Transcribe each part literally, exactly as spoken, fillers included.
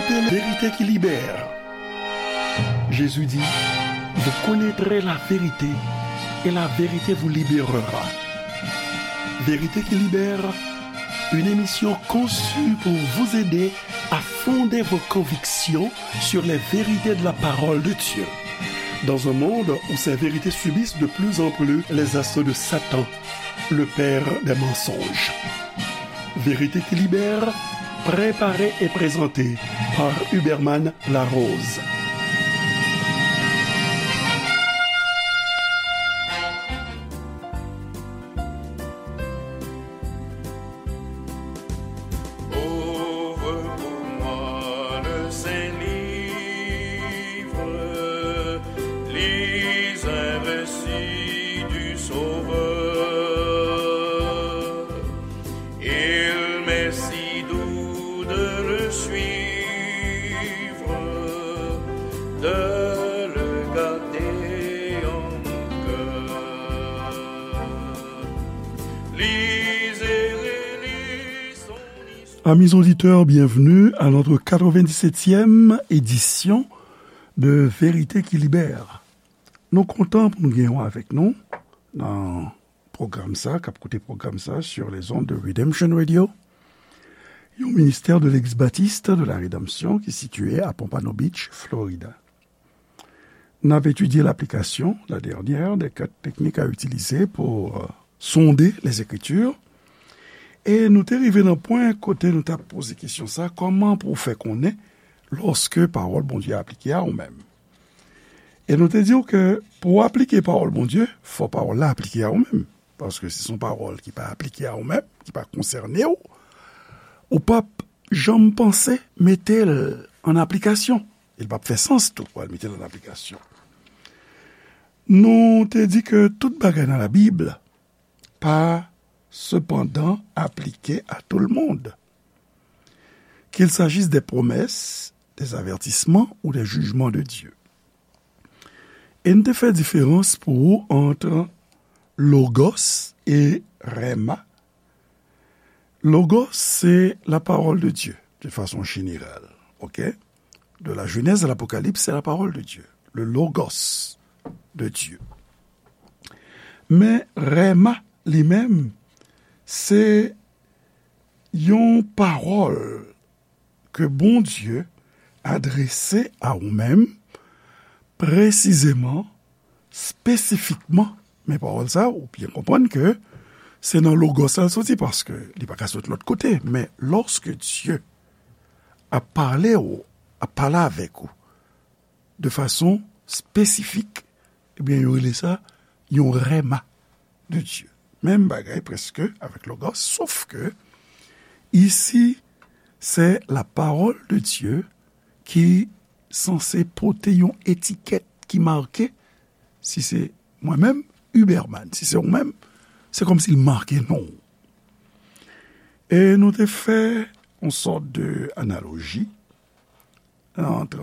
Vérité qui libère. Jésus dit, vous connaîtrez la vérité et la vérité vous libérera. Vérité qui libère, une émission conçue pour vous aider à fonder vos convictions sur les vérités de la parole de Dieu. Dans un monde où ces vérités subissent de plus en plus les assauts de Satan, le père des mensonges. Vérité qui libère, préparée et présentée par Huberman Larose. Ouvre pour moi le saint livre, lis un récit du Sauveur. Il m'est si doux de le suivre, de le garder en mon cœur. Lisez et relisez son histoire. Amis auditeurs, bienvenue à notre quatre-vingt-dix-septième édition de Vérité qui libère. Nou kontan pou nou genyen w avèk nou nan pwogram sa, k ap koute pwogram sa sur les ondes de Redemption Radio, yon ministè de Legliz Batis de la Redanmsyon ki sitiye a Pompano Beach, Florida. N ap etidye laplikasyon, la dernière des quatre techniques à utiliser pour, euh, sonder les Écritures. E nou te rive nan pwen kote nou t ap poze kesyon sa, kòman pou w fè konnen lòske pawòl Bondye aplike a ou menm? E nou te di w ke pou w aplike pawòl Bondye, fò pawòl la aplike a ou menm. Paske si se yon pawòl ki pa aplike a ou menm, ki pa konsène w, ou p ap janm panse mete l an aplikasyon. E l p ap fè sans tou pou w al mete l an aplikasyon. Nou te di ke tout bagay nan Labib pa sepandan aplike à tout le monde, qu'il s'agisse des promesses, des avertissements ou des jugements de Dieu. E n te fè diferans pou ou ant logos e rema. Logos, se la parole de Dieu, de façon générale, ok? De la Genèse à l'Apocalypse, c'est la parole de Dieu, le logos de Dieu. Men rema, li menm, se yon pawòl ke Bondye adrese a ou menm, presizeman, espesifikman. Men pawòl sa, ou byen konprann ke se nan logos la l soti, paske li pa ka sot lòt kote. Men lòske Dye ap pale ou, ap pale avèk ou de fason espesifik, ebyen, yo rele sa yon rema de Dieu. Menm bagay prèske avèk logos, sof ke isi, se la parole de Dieu ki sanse pote yon etikèt ki make, si se mwen menm, Huberman, si se ou menm, se kòmsi l make non w. E nou te fè yon sòt de analoji ant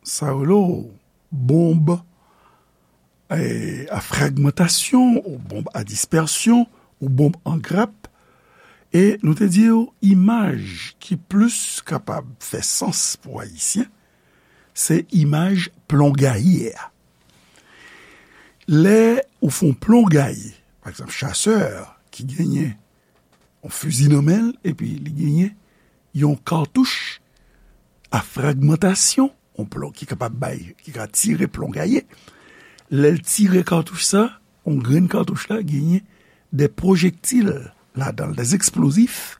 sa yo rele bonb, e, a fragmantasyon, ou bonb a dispèsyon, ou bonb an grap. E nou te di w, imaj ki plis kapab fè sans pou Ayisyen, se imaj plon gaye a. Lè ou fè yon plon gaye, pa egzanp, chasè ki genyen yon fizi nan men l, epi li genyen yon katouch a fragmantasyon, yon plon ki kapab bay, ki ka tire plon gaye. Lè l tire katouch sa, yon grenn katouch la genyen de pwojektil ladan l, de eksplozif,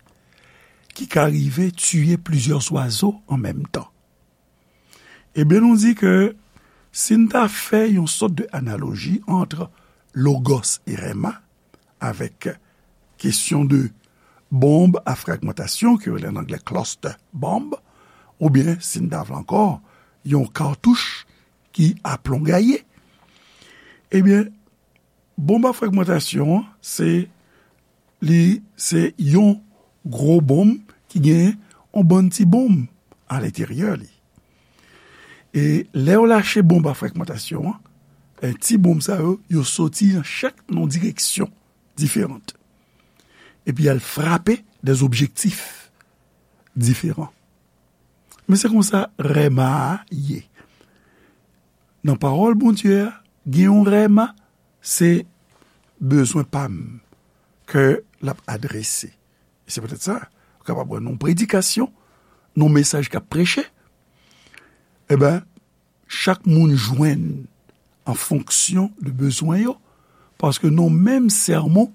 ki ka rive tiye plizyè zwazo an menm tan. Ebyen, nou di ke si n ta fè yon sòt de analoji ant logos e rema avèk kesyon de bonb a fragmantasyon, ke yo rele an anglè cluster bomb, oubyen, si n ta vle ankò, yon katouch ki a plon gaye, ebyen, bonb a fragmantasyon an, se, li, se yon gwo bonm ki gen yon bann ti bonm alenteryè li. E lè w lache bonb a fragmantasyon an, e, ti bonm sa yo, yo soti nan chak nan direksyon diferan. Epi y al frape de objektif diferan. Men se konsa rèma a ye. Nan pawòl Bondye a, gen yon rèma, se bezwen pa m ke l ap adrese. E se petèt sa, ou kapab wè nan yon predikasyon, nan yon mesaj k ap preche, e ben, chak moun jwenn an fonksyon de bezwen yo, paske nan menm sèmon,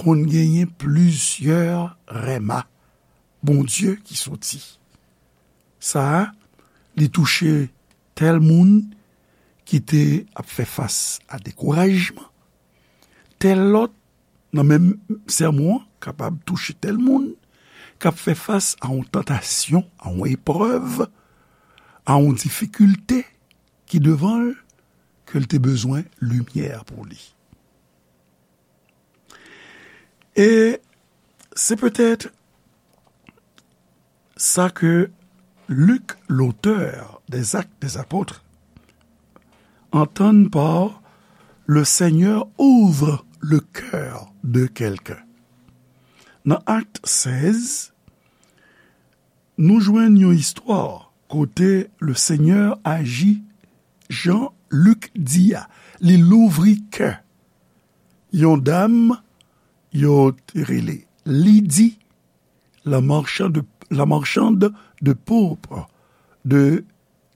konn genyen plizyè rèma Bondye ki soti. Sa a, li touche tèl moun ki te ap fè fas a dekourajman, tèl lòt nan menm sèmon an kapab touche tèl moun k ap fè fas a yon tantasyon, a yon eprèv, a yon difikilte ki devan l, ke l te bezwen limyè pou li. E se petèt sa ke Luc, l'auteur des Actes des Apôtres, entend par le Seigneur ouvre le cœur de quelqu'un. Nan Akt sèz, nou jwenn yon istwa kote le Senyè aji jan Lik di a, li louvri kè yon dam yo te rele Lidi, la marchande, la marchande de pourpre de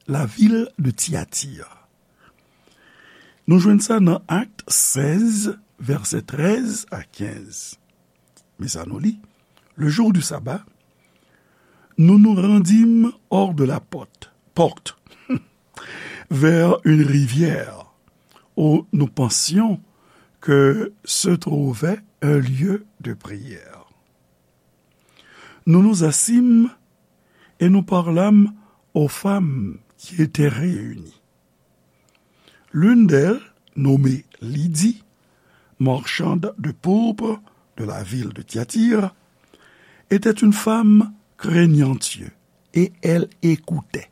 la ville de Thyatire. Nou jwenn sa nan Akt sèz, vèsè trèz a kenz. Men sa nou li, le jour du sabbat, nous nous rendîmes hors de la porte, porte, vers une rivière où nous pensions que se trouvait un lieu de prière. Nous nous assîmes et nous parlâmes aux femmes qui étaient réunies. L'une d'elles, nommée Lydie, marchande de pourpre de la ville de Thyatire, était une femme craignant Dieu, et elle écoutait.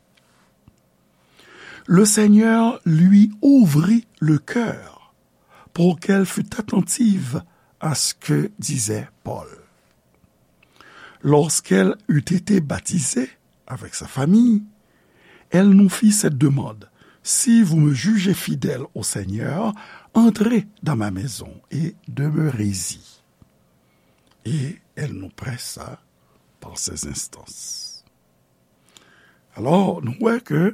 Le Seigneur lui ouvrit le cœur pour qu'elle fût attentive à ce que disait Paul. Lorsqu'elle eut été baptisée avec sa famille, elle nous fit cette demande : « Si vous me jugez fidèle au Seigneur, entrez dans ma maison et demeurez-y. » Et elle nous pressa par ses instances. Alò, nou wè ke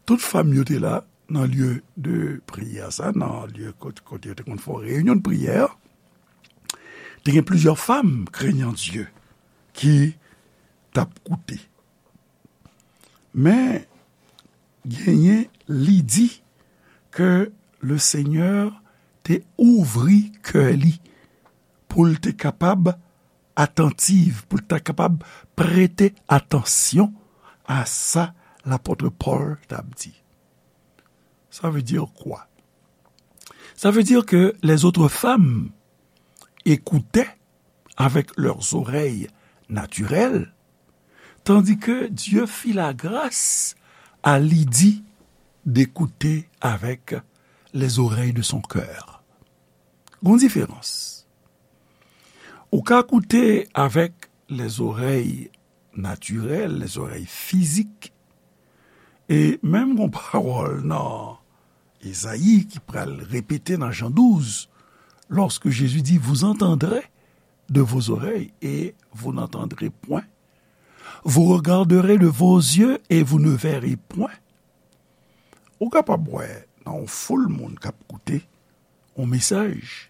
tout fanm yo te la nan lye de priyè sa, nan lye kot-, kote yo te konn fè reyinyon de priyè, te gen plizyè fanm craignant Dieu ki t ap koute. Men, genyen Lidi ke le Senyè te ouvri kè li pou l te kapab atantiv, pou l ta kapab prete atansyon a sa lapot Pòl t ap di. Ça veut dire quoi? Ça veut dire que les autres femmes écoutaient avec leurs oreilles naturelles, tandis que Dieu fit la grâce à Lydie d'écouter avec les oreilles de son cœur. Gon diferans. Ou ka koute avèk lèzorèy natirèl, lèzorèy fizik, e menm gon pawòl nan Ezayi ki pral repete nan Jan douz, lorsque Jésus dit, vous entendrez de vos oreilles et vous n'entendrez point, vous regarderez de vos yeux et vous ne verrez point. Ou kapab wè nan yon foul moun k ap koute yon mesaj,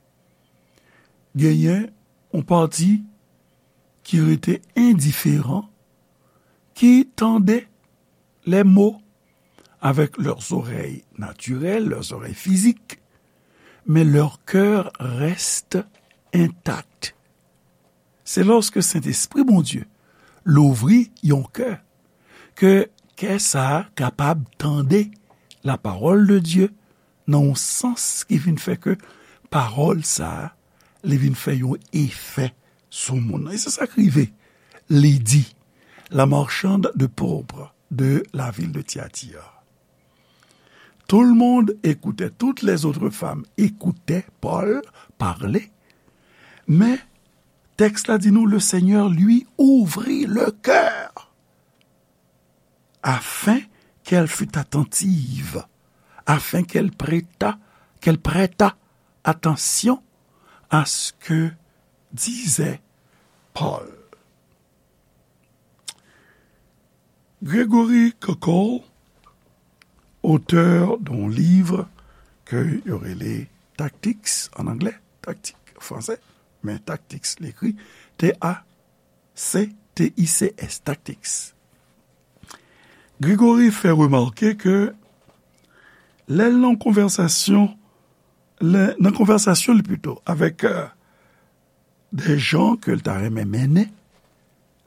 genyen yon pati ki rete endiferan, ki tande les mots avec leurs oreilles naturelles, leurs oreilles physiques, mais leur cœur reste intact. Se lòske Sentespri Bondye louvri yon kè, ke kè sa a kapab tande la parole de Dieu nan yon sans ki vin fè ke pawòl sa a, li vin fè yon efè sou moun nan. E se sa k rive Lidi, la marchande de pourpre de la ville de Thyatire. Tout le monde écoutait, toutes les autres femmes écoutaient Paul parler, mais tèks la di nou, le Seigneur lui ouvrit le cœur. afin qu'elle fût attentive, afin qu'elle prêtât, qu'elle prêtât attention à ce que disait Paul. Gregory Koukl, auteur d'un livre ke yo rele Tactics an anglè, Tactics an fransè, men Tactics li ekri T A C T I C S, Tactics. Gregory fè remake ke lè l nan konvèsasyon, lè, nan konvèsasyon li pito avèk, euh, des gens ke l ta renmen mennen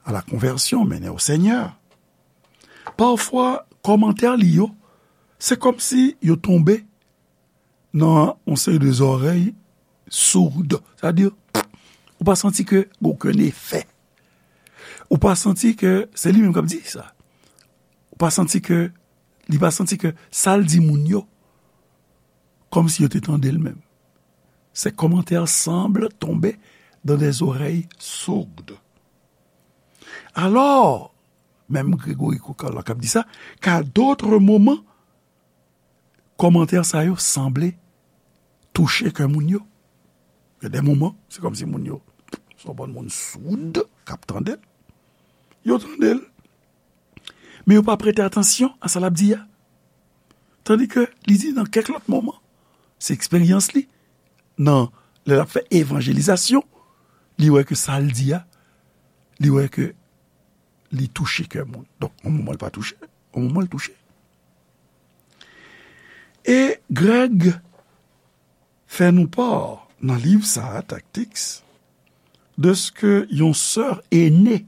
à la conversion, mennen au Seigneur. Pafwa, kòmantè li yo, se kòmsi yo tonbe nan yon seri de zòrèy soud. Sa di, ou pa santi ke gen okenn efè. Ou pa santi ke se li menm k ap di sa. Ou pa santi ke, li pa santi ke sa l di moun yo, kòmsi yo te tande l menm. Ces commentaires semblent tomber dans des oreilles sourdes. Alors, menm Gregory Koukl la k ap di sa, qu'à d'autres moments, kòmantè sa yo sanble touche kè moun yo. Gen de moman, se kòmsi moun yo, se yon bann moun soud k ap tande l. Yo tande l, men yo pa prete atansyon a sa l ap di a. Tandike li di nan kèk lòt moman, se eksperyans li, nan, lè l ap fè evanjelizasyon, li wè ke sa l di a, li wè ke li touche kè moun. Donk, yon moman l pa touche, yon moman l touche. E Greg fè nou pa nan liv sa a, Tactics, de ce que yon sè aînée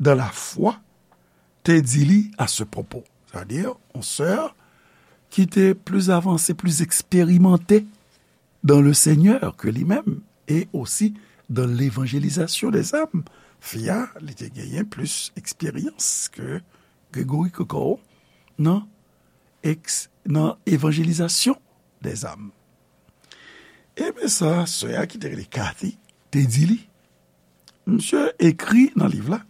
dans la foi te di li à ce propos. Sa vle di, yon sè ki te pli avanse, pli eksperimante dans le Seigneur que li menm, e osi dans l'évangélisation des âmes. Fi a, li te genyen plis eksperyans ke Gregory Koukl nan, eks, nan evanjelizasyon dèzam. Ebyen sa, sè a ki te rele Kathy te di li. Misye ekri nan liv la,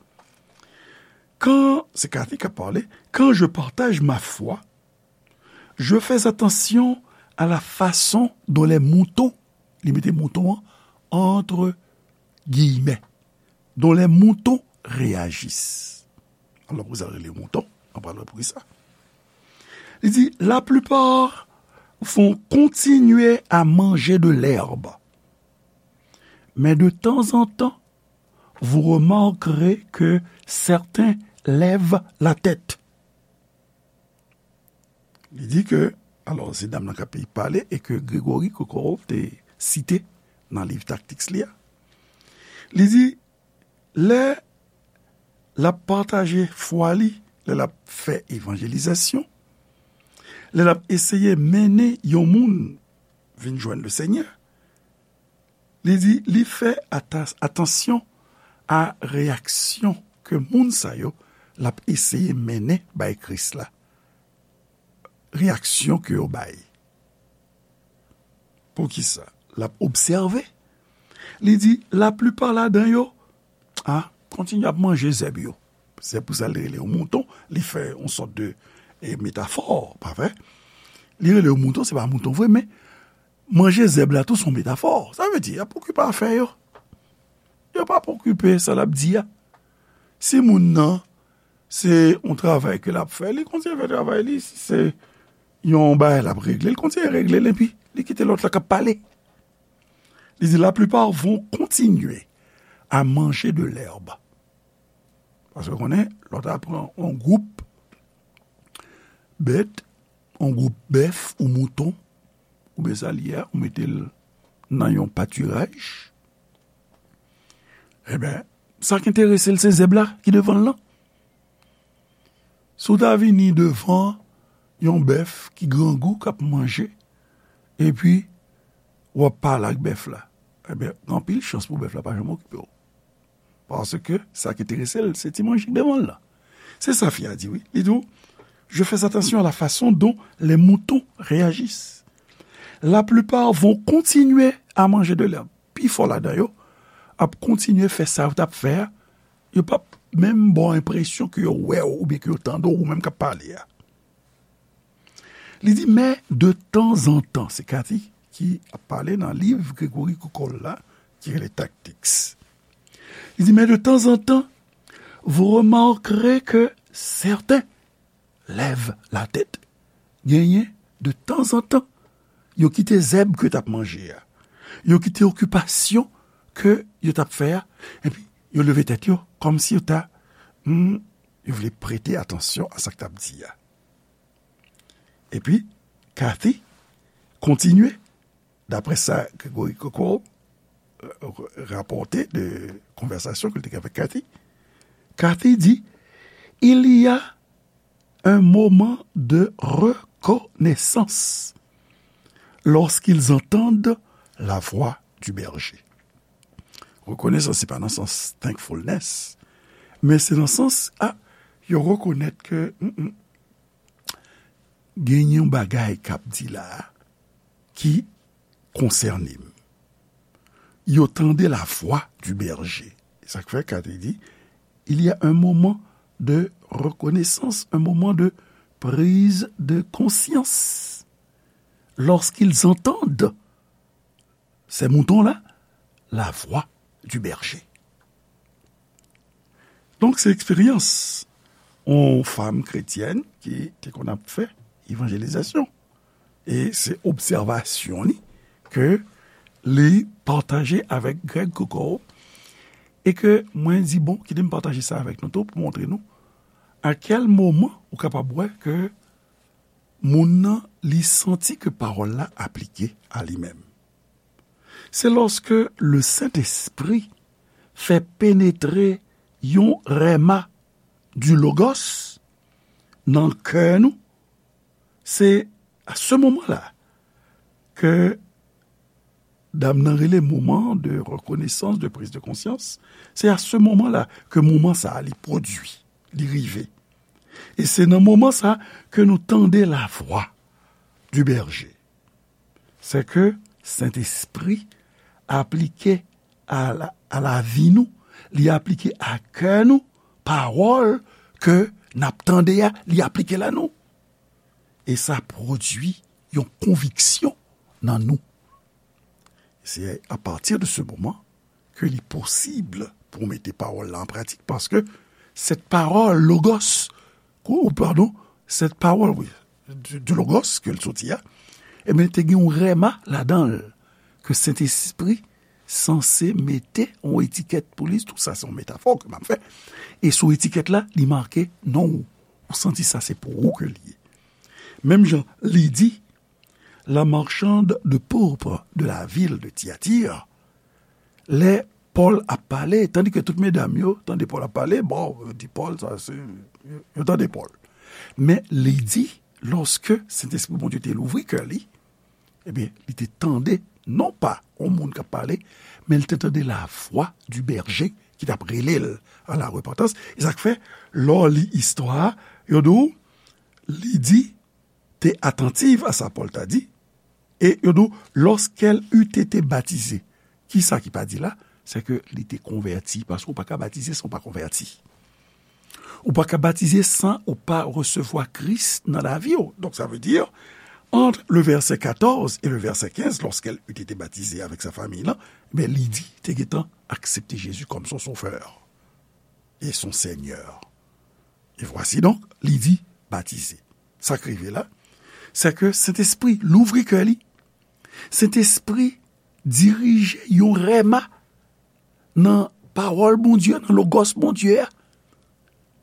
quand, se Kathy k ap pale, quand je partage ma foi, je fais attention à la façon dont les moutons, li mete mouton an entre guillemets, dont les moutons réagissent. Alò, poukisa l rele mouton? Ann pral wè poukisa. Li di, la plupart vont continuer à manger de l'herbe. Mais de temps en temps, vous remarquerez que certains lèvent la tête. Li di ke, alò, se dam nan k ap pale e ke Gregory Koukl te site nan liv Tactics li a. Li di, lè l ap pataje fwa li, lè l ap fè evanjelizasyon, lè l ap eseye mennen yon moun vin jwenn Lesenyè, li di, li fè ata-, atansyon a reyaksyon ke moun sa yo l ap eseye mennen bay Kris la. Reyaksyon ke yo bay. Poukisa? L ap obsève. Li di, laplipa ladan yo, a, kontinye ap manje zèb yo. Se pou sa l rele yo mouton, li fè yon sòt de, e, metafò, pa vre? Li rele yo mouton, se pa mouton vre, men manje zèb la tou se yon metafò. Sa vle di, y ap okipe afè yo. Yo pa okipe sa l ap di a. Si moun nan, se yon travay ke l ap fè, li kontinye fè travay li. Si se yon bagay l ap regle, li kontinye regle l, epi li kite lòt la k ap pale. Li di, la plupart vont continuer à manger de l'herbe. Paske w konnen, lè w ta pran yon gwoup bèt, yon gwoup bèf ou mouton, oubyen sa l ye a, ou mete l nan yon patiraj, ebyen, sa k enterese l, se zèb la ki devan l lan. Si w ta vini devan yon bèf ki grangou, k ap manje, epi w ap pale ak bèf la, ebyen, gen anpil chans pou bèf la pa janm okipe w. Paske sa ki enterese l, se ti manje k devan l lan. Se sa fi a di, wi. Li di w, je fais attention à la façon dont les moutons réagissent. La plupart vont continuer à manger de l'herbe. Pifò ladan yo ap kontinye fè sa yo t ap fè a. Yo p ap menm ba w enpresyon ke yo wè w oubyen ke yo tande w, ou menm k ap pale a. Li di, men de tanzantan, se Kathy ki ap pale nan liv Gregory Koukol la, ki rele Tactics. Li di, men de tanzantan, vous remarquerez que certains lèvent la tête. Genyen, de tanzantan, yo kite zèb ke yo t ap manje a. Yo kite okipasyon ke yo t ap fè a. Epi, yo leve tèt yo, kòmsi yo ta, hmm, yo vle prete atansyon a sa k t ap di a. Epi, Kathy kontinye, daprè sa Gregory Koukol, euh, rapòte de konvèsasyon ke l te gen avèk Kathy. Kathy di, il y a un moment de reconnaissance lorsqu'ils entendent la voix du berger. Rekonesans, se pa nan sans thankfulness, men se nan sans, a, yo rekonèt ke, mm, mm, gen yon bagay k ap di la a ki konsène m. Yo tande la voix du berger. Sa k fè Kathy di, il y a un moment de reconnaissance, un moment de prise de conscience. Lorsqu'ils entendent ces moutons-là, la voix du berger. Donk, se eksperyans yon fanm kretyèn ki te konn ap fè evanjelizasyon. E se obsèvasyon li ke li pataje avèk Greg Koukol e ke mwen di, bon, kite m pataje sa avèk nou tou pou montre nou a kèl moman ou kapab wè ke moun nan, li santi ke pawòl la aplike a li menm. Se lòske le Sentespri fè penetre yon rèma du Logos nan kè nou, se a se moman la ke dam nan rele moman de rekonesans, de priz de konsyans. Se a se moman la ke moman sa a li pwodui, li rive. E se nan moman sa ke nou tande la voix du berger. Se ke Sentespri aplike a la, a lavi nou, li aplike a kè nou, pawòl ke n ap tande a, li aplike la nou. E sa pwodui yon konviksyon nan nou. Se apati de se moman ke li posib pou w mete pawòl la an pratik, paske sèt pawòl, logos, ou, padon, sèt pawòl, wi, du, du logos ke l soti a, ebyen, te gen yon rèma ladan l, ke Sentespri sanse mete yon etikèt pou li, tou sa se yon metafò ke m ap fè, e sou etikèt la, li make non w, ou santi sa se pou ou ke l ye. Menm jan, li di, la marchande de pourpre de la ville de Thyatire, lè Pòl ap pale, tandi ke tout medam yo tande Pòl ap pale, bon, yo di Pòl, sa se, yo, yo tande Pòl. Men li di, lòske Sentespri Bondye te louvri kè li, ebyen, li te tande, non pa yon moun k ap pale, men li te tande la voix du berger ki t ap rele l à la repentance. E sa k fè, lè w li istwa a, yo di w, li di, te attentive à sa Paul t'a dit, e yo di w, lorsqu'elle eut été baptisée. Kisa ki pa di la? Se ke li te konvèti, paske ou pa ka batize san ou pa konvèti. Ou pa ka batize san ou pa resevwa Kris nan lavi w. Donk, sa vle di, entre le verset quatorze et le verset quinze, lorsqu'elle eut été baptisée avec sa famille, la, ben, li di, te gentan aksepte Jezi kòm son sovè e son Senyè. E vwasi donk, li di, batize. Sa k rive la, se ke Sentespri louvri kè li. Sentespri dirije yon rèma nan pawòl Bondye, nan logòs Bondye a.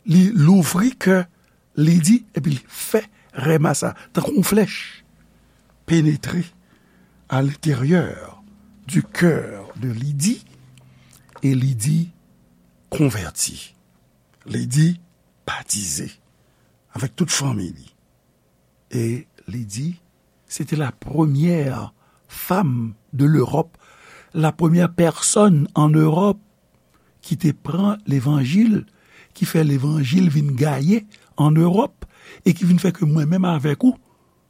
Li louvri kè li di, epi li fè rèma sa, tankou yon flèch, penetre à l'intérieur du cœur de Lydie, e Lydie konvèti. Lydie batize avèk tout fanmi li. E Lydie, se te la premyè fanm de l'Europe, la premyè pèsòn an Ewòp ki te pran levanjil, ki fè levanjil vin gaye an Ewòp, e ki vin fè ke mwen menm avèk ou,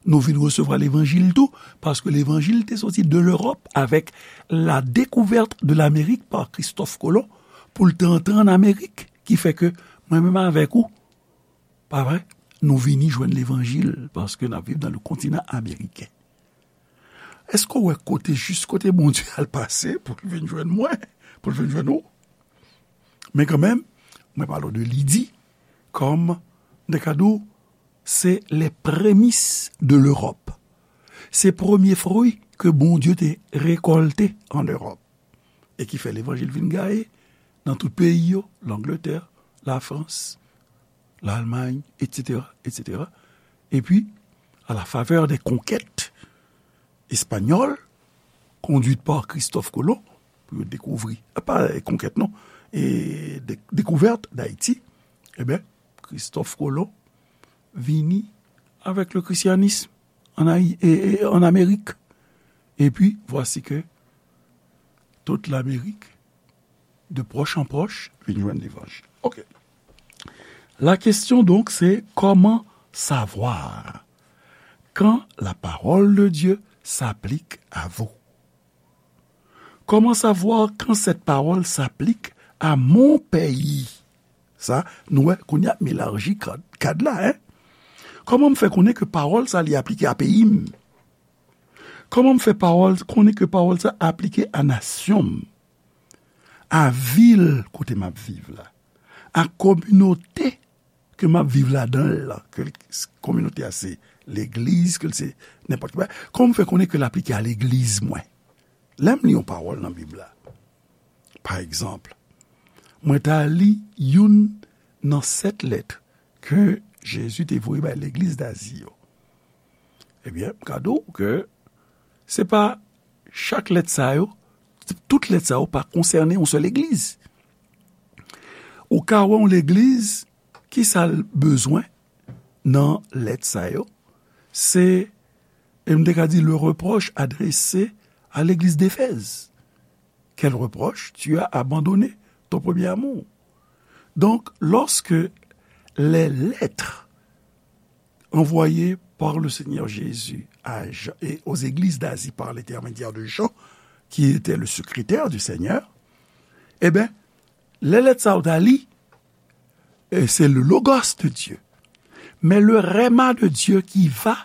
nou vin resevwa levanjil tou, paske levanjil te soti de l'Europe avec la découverte de l'Amérique par Christophe Colomb, pou l te antre an Amerik. ki fè ke mwen menm avèk ou, pa vre, nou vini jwenn levanjil, paske n ap viv nan le kontinan ameriken. Èske w wè kote, jis kote Bondye al pase pou l vin jwenn mwen, pou l vin jwenn ou? Men kanmenm, mwen pale w de Lidi kòm, m te ka di w, se les prémices de l'Europe. Se premye fwi ke Bondye te rekòlte an Ewòp e ki fè levanjil vin gaye nan tout peyi yo, Langletè, Lafrans, Lalmay, etsetera, etsetera. Epi, à la faveur des conquêtes espagnoles, conduites par Christophe Colomb, pou yo dekouvri, pa konkèt non, e de, dekouvèt Dayiti, ebyen, Christophe Colomb vini avèk le christianisme en Ayi-, e, e, en Amérique. Et puis, voici que toute l'Amérique, de proche en proche, vin jwenn levanjil. Ok. La question donc, c'est comment savoir quand la parole de Dieu s'applique à vous? Comment savoir quand cette parole s'applique à mon pays? Sa, nou wè, kounye a m elaji kad, kad la, en. Kòman m fè konnen ke pawòl sa li aplike a peyi m? Kòman m fè pawòl, konnen ke pawòl sa aplike a nasyon m, a vil kote m ap viv la, a kominote ke m ap viv ladan l lan, ke l, kominote a se legliz, ke l se nenpòt ki bagay? Kòman m fè konnen ke l aplike a legliz mwen? Lè m li yon pawòl nan Bib la, pa egzanp, mwen ta li youn nan sèt lèt ke Jezi te voye bay legliz Dazi yo. Ebyen, m ka di w ke se pa chak lèt sa yo, tout lèt sa yo pa konsène yon sèl legliz. Ou ka wè yon legliz, ki sa l bezwen nan lèt sa yo? Se, e m te ka di, le reproche adressé à l'église d'Éphèse. Quel reproche? Tu as abandonné ton premier amour. Donc, lorsque les lettres envoyées par le Seigneur Jésus à Jean, et aux églises d'Asie par l'intermédiaire de Jean, qui était le secrétaire du Seigneur, eh bien, lè lèt sa yo ta li, e se le Logos de Dieu, mais le Rhema de Dieu qui va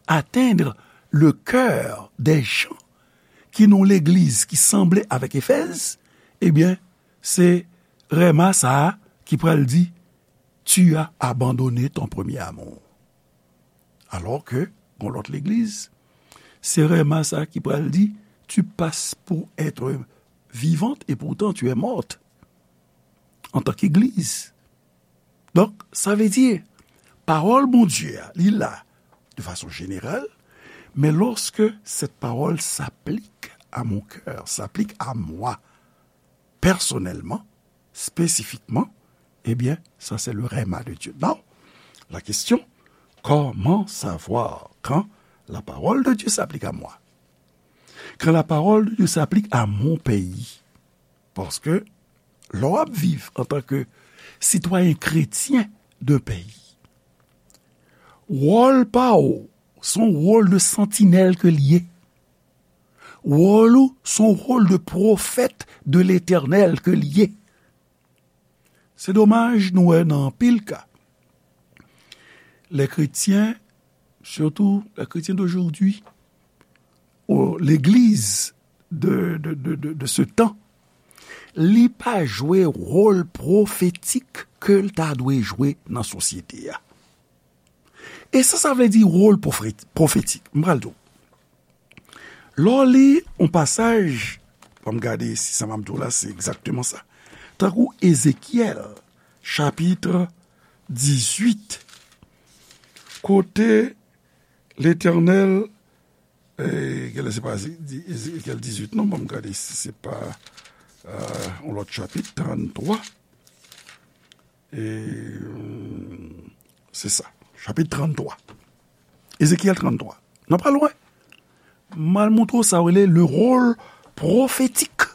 atteindre le cœur des gens ki nan legliz ki sanble avèk Efèz, ebyen, se Rhema sa a ki pral di, tu as abandonné ton premier amour. Alors que, gon lòt legliz, se Rhema sa a ki pral di, tu passes pour être vivante et pourtant tu es morte en tant qu'église. Donk, sa vle di, pawòl Bondye a, li la de fason jeneral, men lorsque cette parole s'applique à mon cœur, s'applique à moi, personnellement, spécifiquement, eh bien, ça c'est le Rhema de Dieu. Now, la question, comment savoir quand la parole de Dieu s'applique à moi? Quand la parole de Dieu s'applique à mon pays? Paske lè w ap viv antanke sitwayen kretyen de peyi, wòl pa w se yon wòl de santinèl ke l ye. Wòl ou se yon wòl de pwofèt de Letènèl ke l ye. Se domaj, nou wè nan anpil ka, lè kretyen, surtout les chrétiens d'aujourd'hui, ou legliz de, de, de, de, de ce temps, li pa jwe wòl pwofetik ke l ta dwe jwe nan sosyete a. E sa, sa vle di wòl pwofet-, pwofetik? M pral di w. Lè w li yon pasaj, ban m gade si sa m ap di w la, se egzakteman sa. Tankou Ezekyèl, chapit dizuit, kote Letènèl, e, genlè se pa Eze-, di-, Ezekyèl dizuit, non, ban m gade si se pa, e, yon lòt chapit, tranntwa. E, se sa, chapit tranntwa. Ezekyèl tranntwa. Nou pa lwen. M al montre w sa w rele le rôle prophétique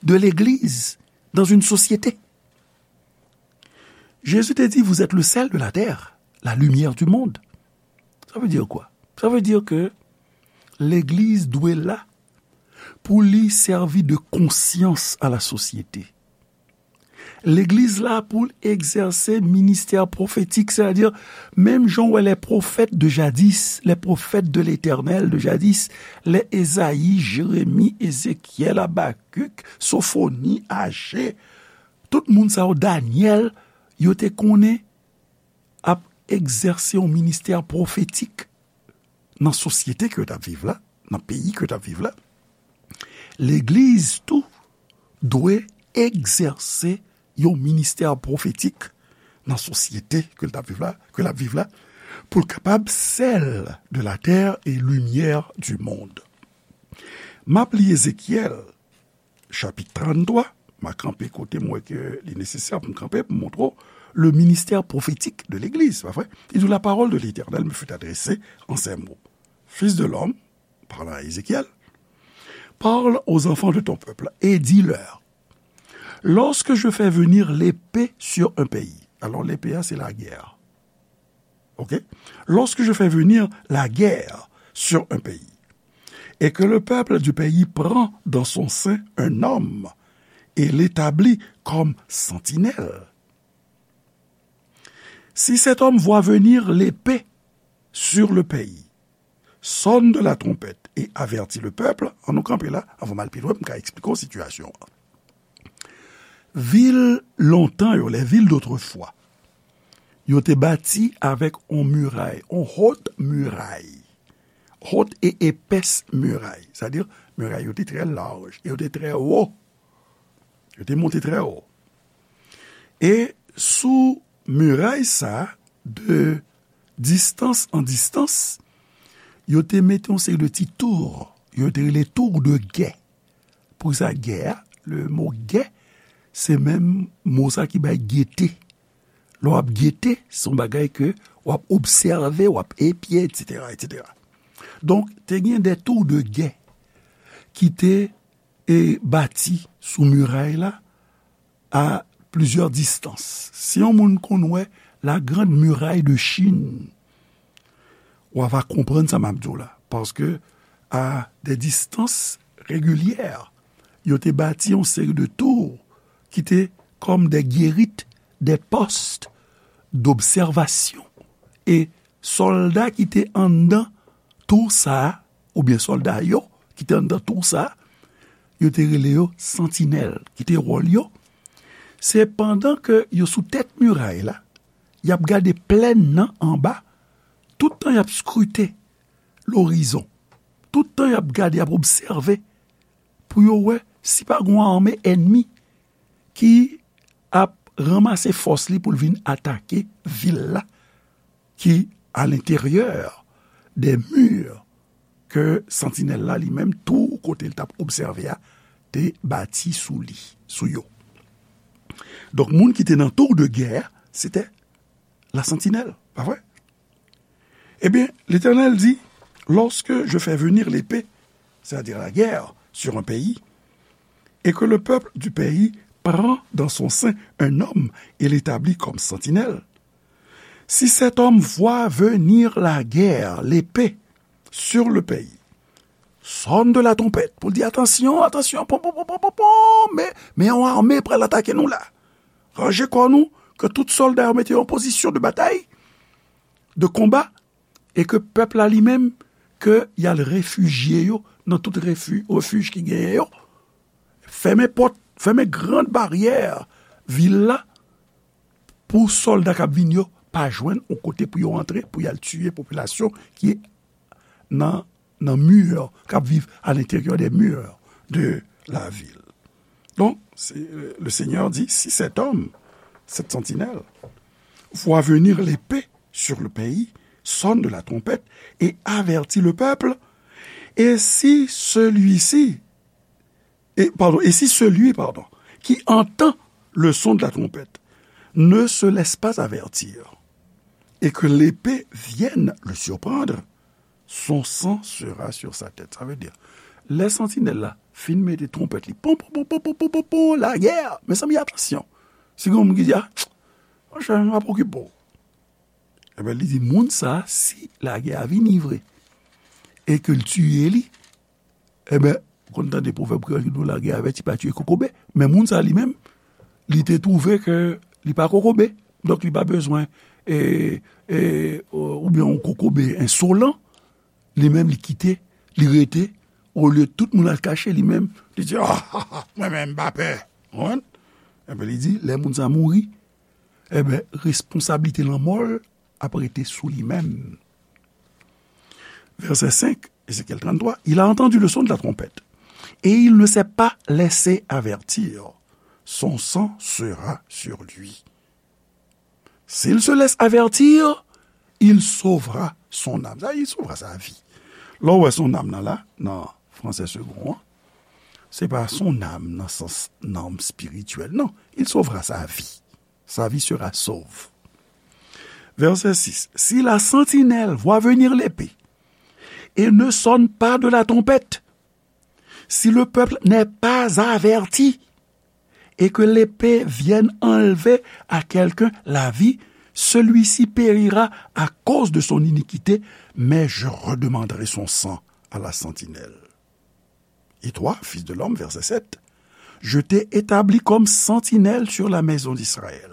de l'Église dans une société. Jésus te di, vous êtes le sel de la terre, la lumière du monde. Sa vle di kwa? Sa vle di ke legliz dwe la pou li sèvi de konsyans a la sosyete. Legliz la pou l egzèse ministè pwofetik, sètadi, menm jan w wè les prophètes de jadis, les prophètes de l'Éternel de jadis, lè Ezayi, Jeremi, Ezekyèl, Abakik, Sofoni, Aje, tout moun sa yo, Danyèl, yo te konnen ap egzèse yon ministè pwofetik nan sosyete ke yo t ap viv la, nan peyi ke yo t ap viv la. Legliz tou dwe egzèse yon ministè pwofetik nan sosyete ke l t ap viv la, ke l ap viv la, pou l kapab sèl de la terre et lumière du monde. M ap li Ezekyèl, chapit tranntwa, m a kanpe kote m wè ke li nesesè pou m kanpe, pou m montre w le ministère prophétique de l'Église, pa vre? Li di, la parole de l'Éternel me fut adressée en ces mots. Fils de l'homme, parlant à Ézéchiel, parle aux enfants de ton peuple et dis-leur, lorsque je fais venir l'épée sur un pays, alors l'épée, c'est la guerre. Ok? Lorsque je fais venir la guerre sur un pays, et que le peuple du pays prend dans son sein un homme et l'établit comme sentinelle, si cet homme voit venir l'épée sur le pays, sonne de la trompette et avertis le peuple, ann nou kanpe la, anvan m al pi lwen, m ka eksplike w sitiyasyon an. Vil lontan yo, les villes d'autrefois, yo te bati avèk on miray, on haute muraille, haute et épaisse muraille, sètadi miray yo te trè laj, e yo te trè wo, yo te monte trè wo. E sou miray sa, de distance en distance, yo te mete yon seri de ti tour, yo te rele tour de guet. Pou sa, guet a, le mo guet, se menm mo sa ki bay gete. Lè w ap gete, se yon bagay ke w ap obsève, w ap epye, etsetera, etsetera. Donk, te gen de tour de guet ki te, e, bati sou miray la, à plusieurs distances. Si yon moun konn wè la Grande Muraille de Chine, w a va konprann sa m ap di w la. Paske, à des distances régulières, yo te bati yon seri de tour ki te comme des guérites, des postes d'observation. E sòlda ki te anndan tour sa a, oubyen sòlda yo ki te anndan tour sa a, yo te rele yo santinèl, ki te wòl yo. Se pandan ke yo sou tèt miray la, y ap gade plèn nan anba, tout tan y ap skrite lorizon, tout tan y ap gade, y ap obsève, pou yo wè si pa gen yon ame ènmi ki ap ranmase fòs li pou l vin atake vil la, ki à l'intérieur des murs ke santinèl la li menm, tou kote l t ap obsève a, te bati sou li, sou yo. Donk, moun ki te nan tour de guet, se te la santinèl, pa vre? Eh bien, l'Éternel dit, lorsque je fais venir l'épée, c'est-à-dire la guerre, sur un pays, et que le peuple du pays prend dans son sein un homme et l'établit comme sentinelle, si cet homme voit venir la guerre, l'épée, sur le pays, sonne de la trompette, pou l di, atansyon, atansyon, pon, pon, pon, pon, pon, pon, men, men yon ame pral atake nou la. Ranje kò nou, ke tout sòlda yo mete yo an pozisyon de batay, de konba, e ke pèp la li menm, ke y al refijye yo nan tout refi-, refij ki genyen yo. Fèmen pòt, fèmen gran baryè vil la, pou sòlda k ap vin yo pa jwenn yon kote pou yo antre, pou y al tiye popilasyon ki nan, nan mi, k ap viv à l'intérieur des murs de la ville. Donc, c'est, euh, le Seigneur dit, si cet homme, cette sentinelle, voit venir l'épée sur le pays, sonne de la trompette et avertit le peuple, et si celui-ci, et, pardon, et si celui, pardon, qui entend le son de la trompette ne se laisse pas avertir, et que l'épée vienne le surprendre, son sang sera sur sa tête. Sa vle di, lè santinèl la fin mete twonpèt li, pon, pon, pon, lagè! Mezanmi, atansyon! Si gen yon moun ki di, a, monchè, m ap okipe w. Ebyen, li di, moun sa, si lagè a vini vre, e ke l tiye li, ebyen, ou konn tande pwovèb kreyòl ki di w lagè avèti pa tiye kokobe, men moun sa li menm, li te twouve ke li pa kokobe. Donk, li pa bezwen, e, e, oubyen yon kokobe ensolan, li menm li kite, li rete, olye tout moun al kache, li menm, li di, "Ah, ah, ah, mwen menm m pa pè." Konprann? Epi li di, lè moun sa mouri, enben, responsablite lanmò l ap rete sou li menm. Verset cinq, Ézéchiel trente-trois, il a entendu le son de la trompette, et il ne s'est pas laissé avertir. Son sang sera sur lui. S'il se laisse avertir, il sauvera son âme. Sa, il sauvera sa vi. Lè w wè son âme nan la, nan fransè segon an, se pa son âme nan sans nanm espirityèl, non. Il sauvera sa vie. Sa vie sera sauve. Verset six. Si la sentinelle voit venir l'épée et ne sonne pas de la trompette, si le peuple n'est pas averti et que l'épée vienne enlever à quelqu'un la vie, celui-ci périra à cause de son iniquité, mais je redemanderai son sang à la sentinelle. Et toi, fils de l'homme, verset sept, je t'ai établi comme sentinelle sur la maison d'Israël.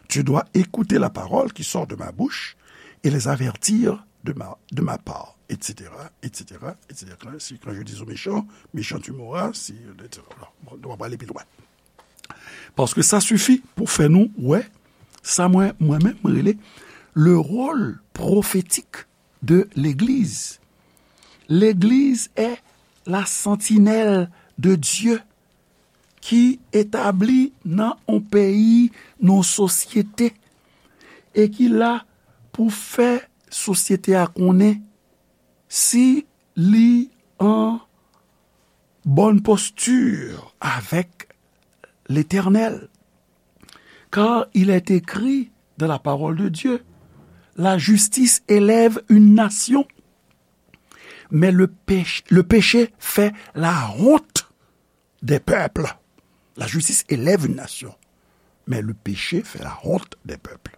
Tu dois écouter la parole qui sort de ma bouche et les avertir de ma, de ma part, et cetera, et cetera, et cetera. Si quand je dis au méchant, méchant tu mourras, si, et cetera. Bon, nou va pale pi lwen. Paske sa sifi pou fè nou wè sa mwen, mwen menm, mwen rele le rôle prophétique de l'Église. L'Église est la sentinelle de Dieu ki etabli nan yon peyi, nan yon sosyete, e ki la pou fè sosyete a konnen si li an bonne posture avec l'Éternel. Car il est écrit dans la parole de Dieu, la justice élève une nation, mais le péch-, le péché fait la honte des peuples. La justice élève une nation, mais le péché fait la honte des peuples.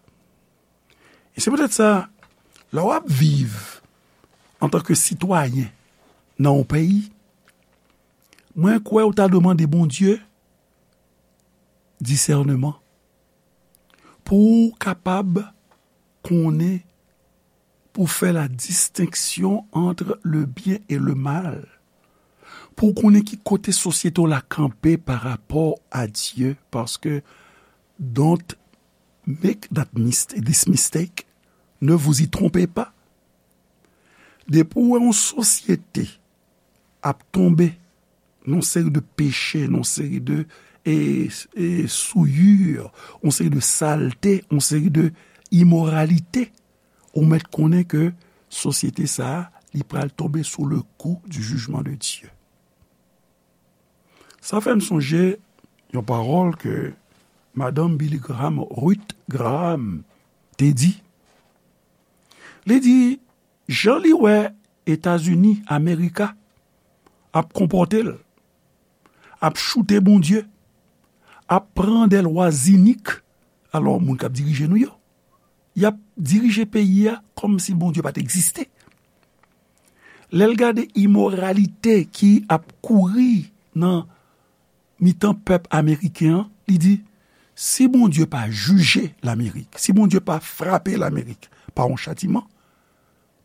E se poutèt sa, lè w ap viv antanke sitwayen nan yon peyi, mwen kwè ou ta dwe mande Bondye disèneman pou w kapab konnen, pou fè la distenksyon ant le byen e le mal, pou w konnen ki kote sosyete w la kanpe pa rapò a Dye, paske don't make that mistake, this mistake, ne vous y trompez pas. Depi w wè yon sosyete ap tonbe nan yon seri de peche, nan yon seri de, e, e, souillure, yon seri de salte, yon seri de imoralite, ou mèt konnen ke sosyete sa a, li pral tonbe sou le kou du jugement de Dieu. Sa fè m sonje yon pawòl ke madanm Billy Graham, Ruth Graham, te di. Li di, jan li wè Etazini, Amerika, ap konpòte l, ap choute Bondye, ap pran dè lwa zinik, alò, moun k ap dirije nou yo, y ap dirije peyi a kòmsi Bondye pa t egziste. Lè l gade imoralite ki ap kouri nan mitan pèp ameriken an, li di, si Bondye pa jije Lamerik, si Bondye pa frape Lamerik pa yon chatiman,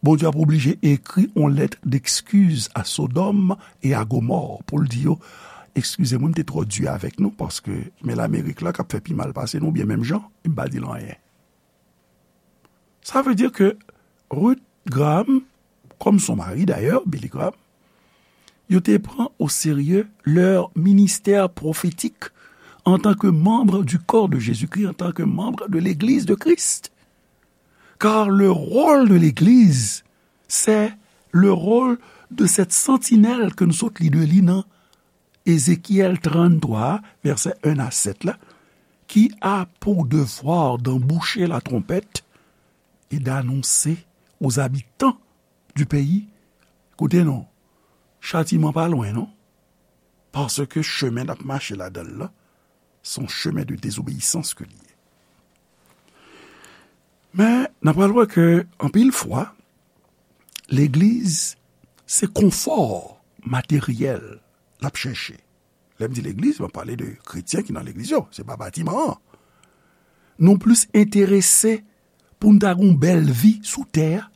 Bondye ap oblije ekri yon lèt d'excuse à Sodome et à Gomorrhe pou l di yo, "Eskize mwen, m te twò di avèk nou, paske men Lamerik la k ap fè pi mal pase nou, oubyen menm jan, m pa di l anyen." Sa vle di ke Ruth Graham, comme son mari d'ailleurs, Billy Graham, yo te pran au sérieux leur ministère prophétique en tant que membre du corps de Jésus-Christ, en tant que membre de l'Église de Christ. Car le rôle de l'Église, c'est le rôle de cette sentinelle ke nou sot li de li nan Ézéchiel trannntwa, vèsè en a sèt la, qui a pour devoir d'emboucher la trompette et d'annoncer aux habitants du pays, koute non, chatiman pa lwen non, paske chemen n ap mache ladan l la, se yon chemen de dezobeyisans ke li ye. Men, n ap pral wè ke, anpil fwa, legliz, se konfò materyèl l ap chèche. Lè m di legliz, m ap pale de kretyen ki nan legliz yo, se pa batiman an. Nou plis enterese pou n ta gen yon bèl vi sou tè a.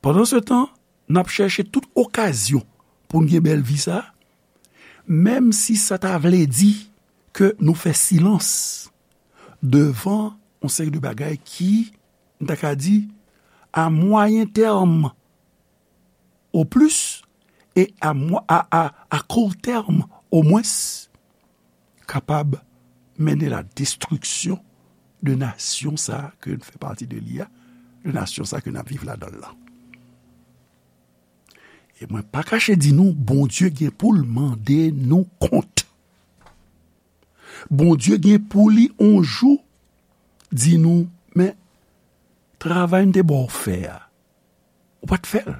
Pandan se tan, n ap chèche tout okazyon pou n gen bèl vi sa a, menm si sa ta vle di ke nou fè silans devan yon seri de bagay ki, m ta ka di, a mwayen tèm o plis, e a, mwa- a, a, a kou tèm omwens, kapab mennen la destriksyon de nasyon sa a ke n fè pati de li a, de nasyon sa a ke n ap viv ladan l lan. E mwen pa kache di nou, Bondye gen pou l mande nou kont. Bondye gen pou li on jou di nou, men travay m te ba w fè a, ou pa t fè l.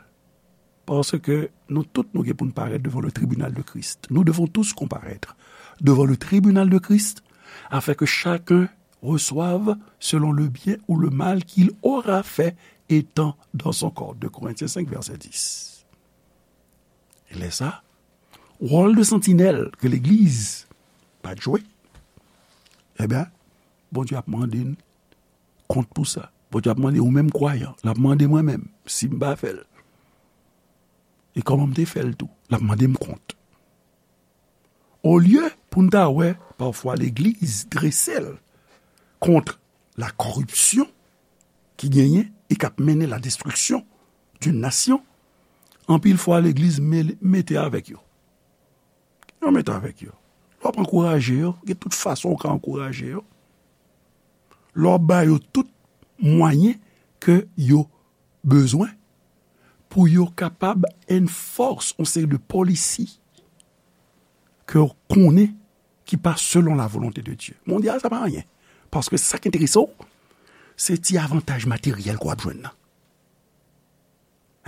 Paske nou tout nou gen pou n parèt devan le tribunal de Christ. Nous devons tous comparaître devant le tribunal de Christ, afin que chacun reçoive selon le bien ou le mal qu'il aura fait étant dans son corps. Deux Corinthiens cinq, verset dix. E lè sa, wòl de santinèl ke legliz pa t jwe, ebyen, Bondye ap mande n kont pou sa. Bondye ap mande ou menm kwayan, l ap mande mwen menm, si m pa fè l. E kòman m te fè l tou, l ap mande m kont. Olye pou n ta wè, pafwa legliz drese l kont la koripsyon ki genyen e k ap mennen la destriksyon d'une nation, anpil fwa legliz mele- mete avèk yo. Yo mete avèk yo. Lè w ap ankouraje yo, gen tout fason w ka ankouraje yo. Lè w ap ba yo tout mwayen ke yo bezwen pou yo kapab enforce yon seri de policy ke w konnen ki pa selon la volonte de Dye. Mondyal, sa pa anyen. Paske sa k enterese w, se ti avantaj materyèl ke w ap jwenn nan.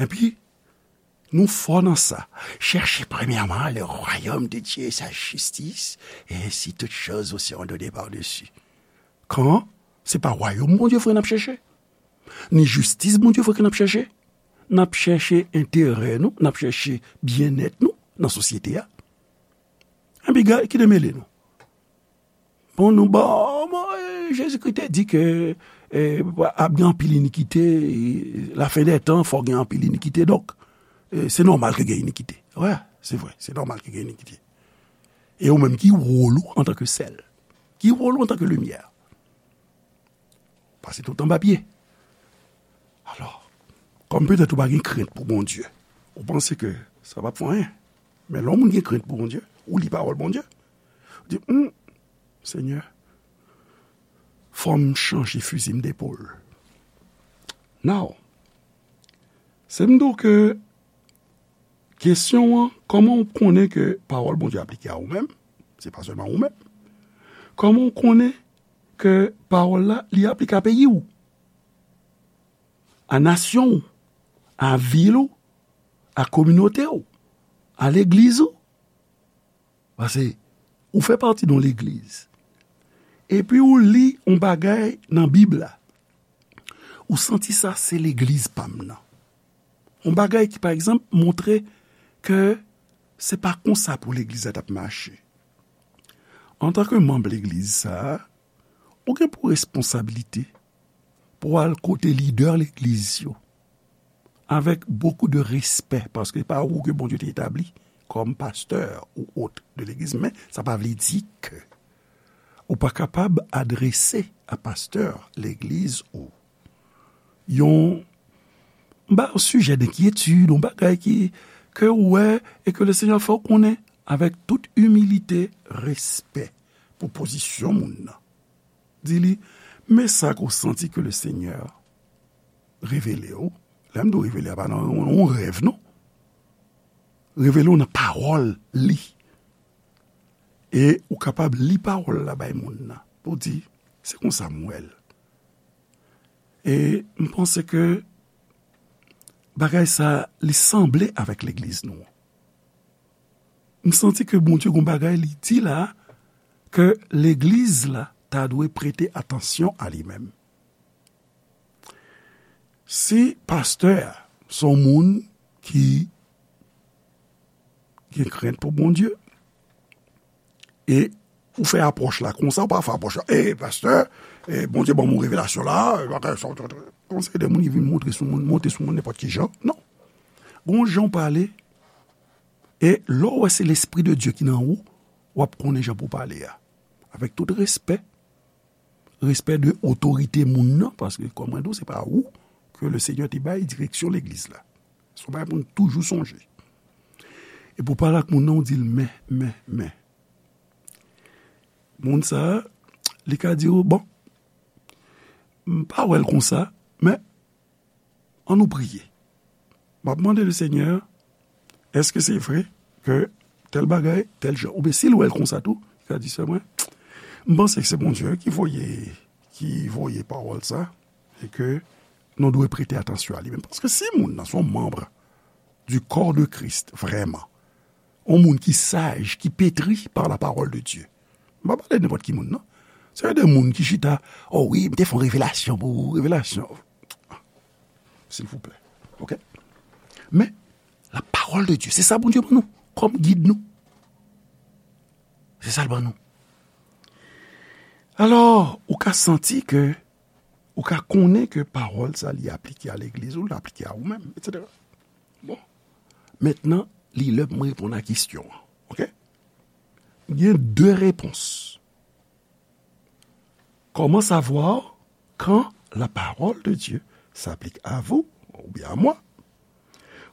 Epi, nou fò nan sa. Cherchez premièrement le royaume de Dieu et sa justice, et ainsi toutes choses vous seront données par-dessus. Kan se pa wayòm Bondye vre n ap chèche, ni jistis Bondye vre ke n ap chèche, n ap chèche enterè nou, n ap chèche byennèt nou nan sosyete a. Epi, gade, ki te mele nou? Bon, nou, bon, bon, eh, Jezikri te di ke, eh, ap gen anpil inikite, eh, lafen dè tan, fò gen anpil inikite. Donk, eh, se nòmal ke gen inikite. Wi, se vre, se nòmal ke gen inikite. E ou menm, ki wòl ou antanke sèl? Ki wòl ou antanke limyè? Pase tout anba pye. Alò, kòm petèt ou pa gen krent pou Bondye, ou panse ke sa p ap fè anyen. Men lè yon moun gen krent pou Bondye, ou li pawòl Bondye, ou di, hmm, Senyè, fò m chanje fizi m depòl. Now, se m di w ke kesyon an, kòman w konnen ke pawòl Bondye aplike a ou menm? Se pa sèlman ou menm. Kòman w konnen ke pawòl la, li aplike a peyi w, a nasyon w, a vil ou, a kominote w, a legliz ou? Paske ou fè pati de yon legliz. Epi ou li yon bagay nan Bib la. Ou santi sa se legliz pa m nan. Yon bagay ki, pa egzanp, montre ke se pa konsa pou legliz la t ap mache. Antanke manm legliz sa a, ou gen pou responsablite pou al kote lidè legliz yo, avèk bokou de respè, paske se pa ou ke Bondye te etabli kòm pastè ou ot de legliz, men sa pa vle di ke ou pa kapab adrese a pastè legliz ou yon, ba, yon sijè denkyetid, yon bagay ki, ke ou wè, e ke Lesenyè fè w konnen avèk tout imilite, respè pou pozisyon moun nan. Di li, men sa ke w santi ke Lesenyè revele w. Lè m di w revele, a pa nan yon, yon rèv, non. Revele w nan pawòl li. E ou kapab li pawòl la bay moun nan. Pou di, se konsa m wè l. E m panse ke bagay sa, li sanble avèk legliz nou an. M santi ke Bondye gon bagay li di la, ke legliz la ta dwe prete atansyon a li menm. Si pastè a se yon moun ki gen krent pou Bondye, E ou fè apwòch la konsa, ou pa fè apwòch la, e pastè, e Bondye ban m yon revelasyon la, e bagay sa, yon seri de moun ki vin montre sou moun, monte sou moun nenpòt ki jan. Non. Gon jan w pale, e lè w wè se Lespri de Dye ki nan ou, w ap konnen jan pou w pale a. Avèk tout respè, respè de otorite moun nan, paske kòm mwen di w, se pa ou ke le Senyè te bay direksyon legliz la. Se yon bagay pou n toujou sonje. E pou pale ak moun nan, ou di l, men, men, men. Moun sa a, li ka di w, bon, m pa wè l konsa, men ann nou priye. M ap mande le Senyè, èske se vre ke tèl bagay, tèl jan? Oubyen si l wè l konsa tou, li ka di, sè mwen, m panse ke se Bondye ki voye, ki voye pawòl sa, e ke nou dwe prete atansyon a li menm. Paske si moun nan se yon manm du corps de Christ, vrèman, yon moun ki saj, ki pétri par la parole de Dieu. M pa pale de nenpòt ki moun, non. Se de moun ki chita, oh wi, m te fè yon revelasyon pou ou, revelasyon. Silvouplè. Oke? Men, la parole de Dieu, se sa Bondye ban nou, kòm gid nou. Se sa l ban nou. Alò, ou ka santi ke, ou ka konnen ke pawòl sa li aplike a legliz ou, l aplike a ou menm, etsetera. Bon. Mentnan, li lè pou mwen reponn a kesyon an. Oke? Gen de repons. Comment savoir quand la parole de Dieu s'applique à vous ou bien à moi?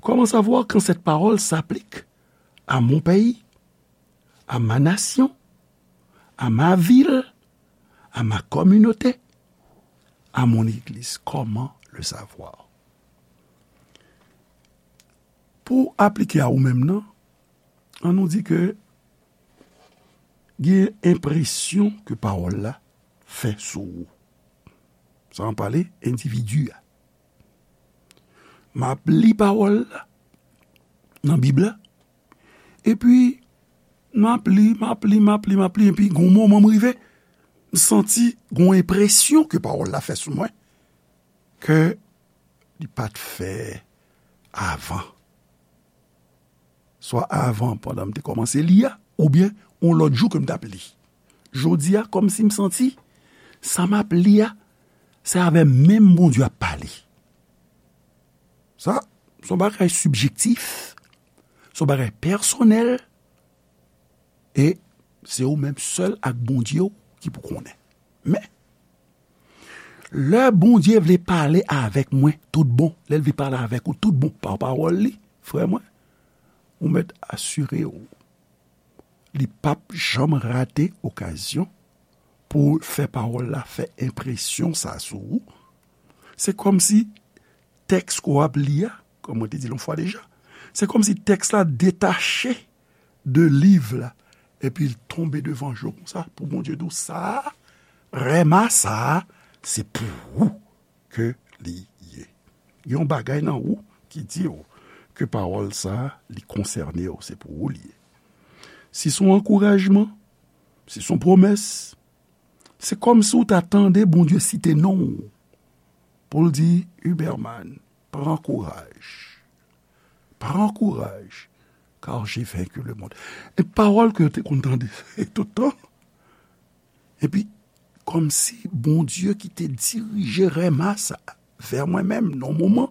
Comment savoir quand cette parole s'applique à mon pays, à ma nation, à ma ville, à ma communauté, à mon église? Comment le savoir? Pou aplike a ou menm nan, ann nou di ke gen enpresyon ke pawòl la fè sou ou. Sa ann pale endividi a. M ap li pawòl la nan Bib la, epi m ap li, m ap li, m ap li, m ap li, epi gon moman m rive, m santi gon enpresyon ke pawòl la fè sou mwen, ke li pa t fè avan. Swa avan, pandan m te kòmanse li a, oubyen yon lòt jou ke m t ap li. Jodi a, kòmsi m santi, sa m ap li a, se avè menm Bondye ap pale. Sa, se yon bagay sibjektif, se yon bagay pèsonèl, e se ou menm sèl ak Bondye w ki pou konnen. Men, lè Bondye vle pale avèk mwen tout bon, lè l vle pale avèk ou tout bon pa pawòl li, frè mwen, ou mèt asire w, li p ap janm rate okazyon pou fè pawòl la fè enpresyon sa sou ou. Se kòmsi tèks ke w ap li a, kòm mwen te di l yon fwa deja, se kòmsi tèks la detache de liv la, epi l tonbe devan je w konsa, pou Bondye di w, sa a, rèma sa a, se pou ou ke li ye. Gen yon bagay nan ou ki di w ke pawòl sa a, li konsène w, se pou ou li ye. Si se yon ankourajman, si se yon pwomès, se kòmsi w ta tande Bondye site non w pou l di, Huberman, pran kouraj. Pran kouraj, car j'ai vaincu le monde. E pawòl ke yo te konn tande tout tan. Epi, kòmsi Bondye ki te dirije rèma sa vè mwen menm nan moman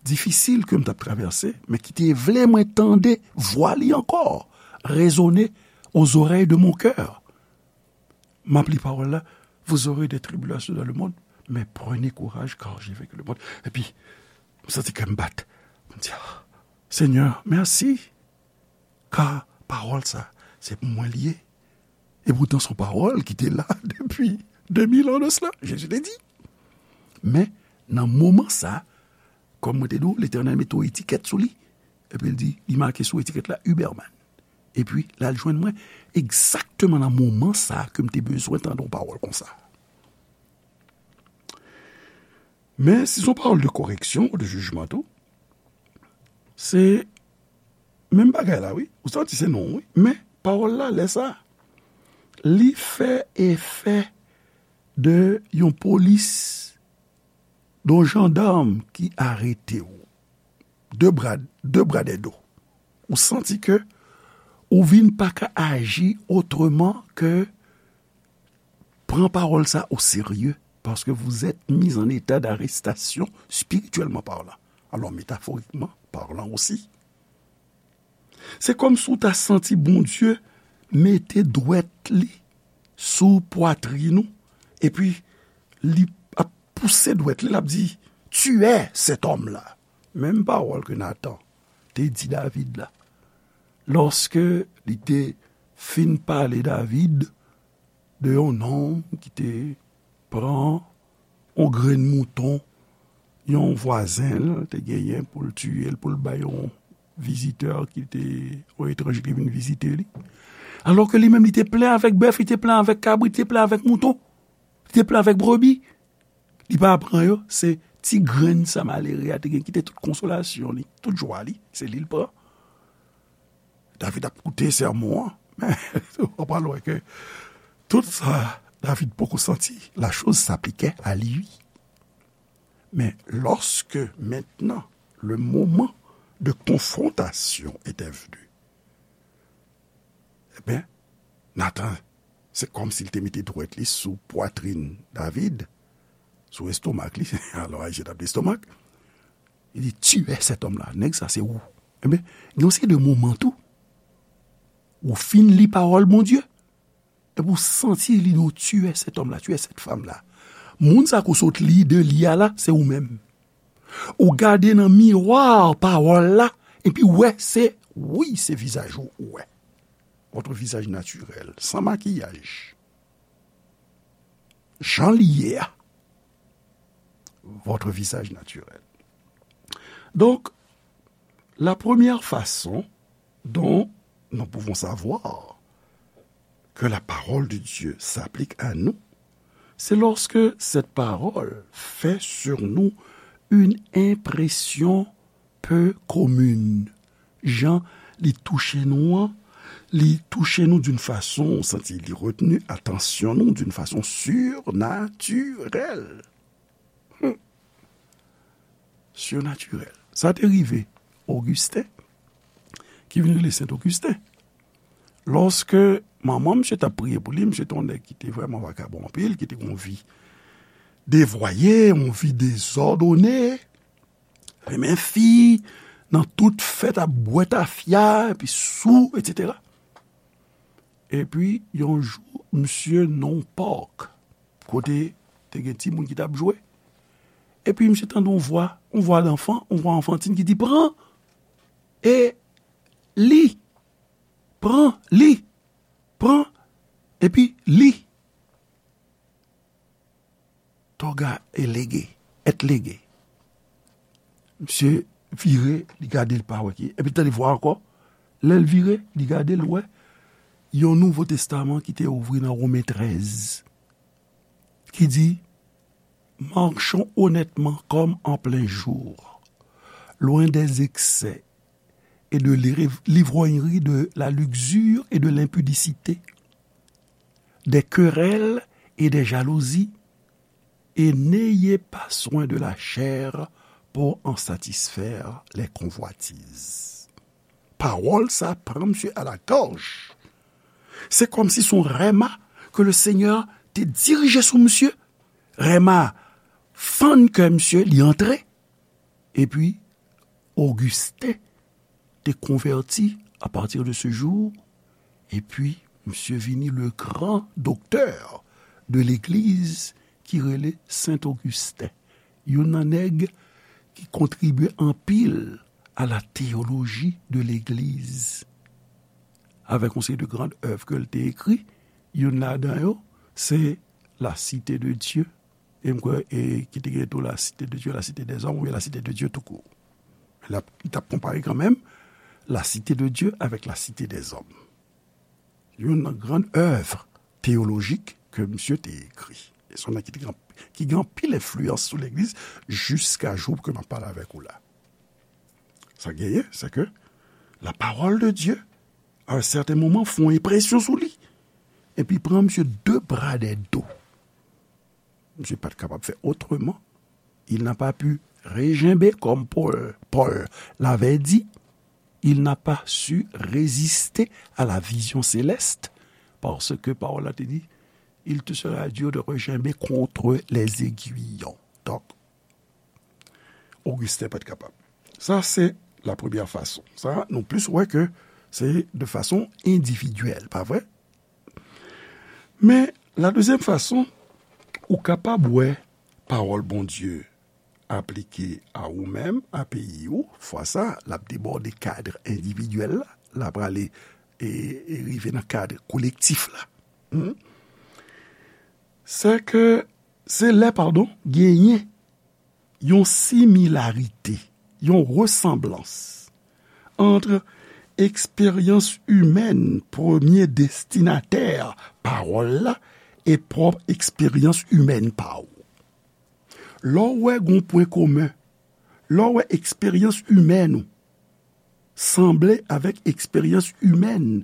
difisil ke m t ap travèse, men ki te vle mwen tande vwa li ankò résonner aux oreilles de mon cœur. M ap li pawòl la, vous aurez des tribulations dans le monde, mais prenez courage car j'ai vaincu le monde. Epi, m santi kè m bat. M di, ah, Senyè, mèsi. Ka pawòl sa, se pou mwen li ye. E poutan, se yon pawòl ki te la depi de mil an de sela, Jezi te di. Men, nan moman sa, kòm mwen te di w, Letènèl mete yon etikèt sou li. Epi l di, li make sou etikèt la, Huberman. Epi, l al jwenn mwen egzakteman nan moman sa ke m te bezwen tande yon pawòl konsa. Men, si se yon pawòl de koreksyon ou de jijman tou, se menm bagay la, wi. Ou santi se non, wi. Men, pawòl la, lè sa, li fè efè de yon polis, de yon jandam ki arete w. De bra, de bra dèyè do. Ou santi ke Ou vin pa ka aji otreman ke pran pawòl sa o serye, paske vous êtes mis en état d'arrestation spirituellement parlant. Alors, métaphoriquement parlant aussi. Se kòmsi w ta santi Bondye mete dwèt li sou pwatrin ou, epi li ap pouse dwèt li, l ap di, tuez cet homme-là. Menm pawòl ke Natan te di David la. Lòske li te fin pale David de yon nonm ki te pran yon grenn mouton yon vwazen l te genyen pou l tiye l, pou l bay yon vizitè ki te, yon etranje ki vin vizite li. Alò ke li menm, li te plen avèk bèf, li te plen avèk kabrit, li te plen avèk mouton, li te plen avèk brebi. Li pa pran yo, se ti grenn sa malere a te gen, ki te tout konsolasyon li, tout jwa li, se li l pran. David ap koute sèmon an, men w pral wè ke tout sa David poko santi, la chose s'appliquait à lui. Mais lorsque maintenant le moment de confrontation était venu, eh bien, Nathan, se kòmsi l te mete dwèt li sou pwatrin David, sou estomak li, alò Ayisyen t ap di estomak, li di, tuez cet homme-là, nèg sa se ou. Ebyen, gen yon seri de moman tou, ou fin li pawòl Bondye, epi ou santi li di w, tuez cet homme-là, tuez cette femme-là. Moun sa ke w sot li de li a la, se ou menm. Ou gade nan miwa pawòl la, epi w wè se, wi, se vizaj ou ou wè. Votre visage naturel, sans maquillage. Jan li ye a. Votre visage naturel. Donc, la première façon dont nous pouvons savoir que la parole de Dieu s'applique à nous, c'est lorsque cette parole fait sur nous une impression peu commune. Jan li touche nou an, li touche nou d'une façon, ou santi li retenu atansyon nou d'une façon surnaturelle. Hmm. Surnaturelle. Sa te rive Ogisten, ki vin rele Sent Ogisten. Lòske manman misye t ap priye pou li, misye te yon nèg ki te vrèman vakabon anpil, ki te gen yon vi devwaye, yon vi dezòdone, renmen fi, nan tout fèt ap bwè tafya, epi sou, etsetera. Epi, yon jou, misye nan yon park, kote te gen timoun ki t ap jwe. Epi, misye tande yon vwa, yon vwa danfan, yon vwa anfantin ki di, pran e li, pran li, pran, epi li. Toga e lege, et lege. Misye vire, li gade, li pa wè ki. Epi tande vwa ankò. Lè l vire, li gade, l wè yon Nouvo Testaman ki te ouvri nan Women trèz, ki di, marchons honnêtement comme en plein jour, loin des excès et de l'iv-, l'ivrognerie, de la luxure et de l'impudicité, des querelles et des jalousies, et n'ayez pas soin de la chair pour en satisfaire les convoitises. Pawòl sa pran misye a la gòj. Se kòmsi se yon rèma ke le Senyè te dirije sou misye. Rèma fann kè misye, li antre. Epi, Ogisten te konvèti à partir de ce jour, epi misye vini le grand docteur de l'église ki rele Sent Ogisten, youn nan nèg ki kontribye anpil à la théologie de l'église. Avèk yon seri de grand œuvre ke l te ekri, youn ladan yo, se La Cité de Dieu, e m kwè, e ki te gen tou La Cité de Dieu, La Cité des Hommes, oubyen La Cité de Dieu tout court. L ap, li t ap konpare kanmenm La Cité de Dieu avec La Cité des Hommes. Youn nan gran èv teyolojik ke misye te ekri. E se yon nèg ki te gen, ki gen anpil enfliyans sou legliz jiska jou ke m ap pale avèk ou la. Sa genyen, se ke la parole de Dieu, à un certain moment, fè yon enpresyon sou li. Epi pran misye de bra de do. Misye pa t kapab fè otreman. Il n'a pas pu rejenbe, comme Paul, Paul l'avait dit. il n'a pas su résister à la vision céleste, parce que pawòl la te di, il te sera dur de regimber contre les aiguillons. Donk, Ogisten pa t kapab. Sa, se la premyè fason. Sa, nou plis wè ke se de fason endividyèl, pa vre? Men, la dezyèm fason, ou kapab wè pawòl Bondye aplike a ou menm, a peyi ou, fwa sa, l ap debòde kad endividyèl la, l ap prale e, e rive nan kad kolektif la. Hmm? Se ke, se lè, padon, genyen yon similarite, yon resanblans ant eksperyans imèn, premye destinatè pawòl la, e pwòp eksperyans imèn pa w. Lè w wè gon pwen komen, lè w wè eksperyans imèn ou sanble avèk eksperyans imèn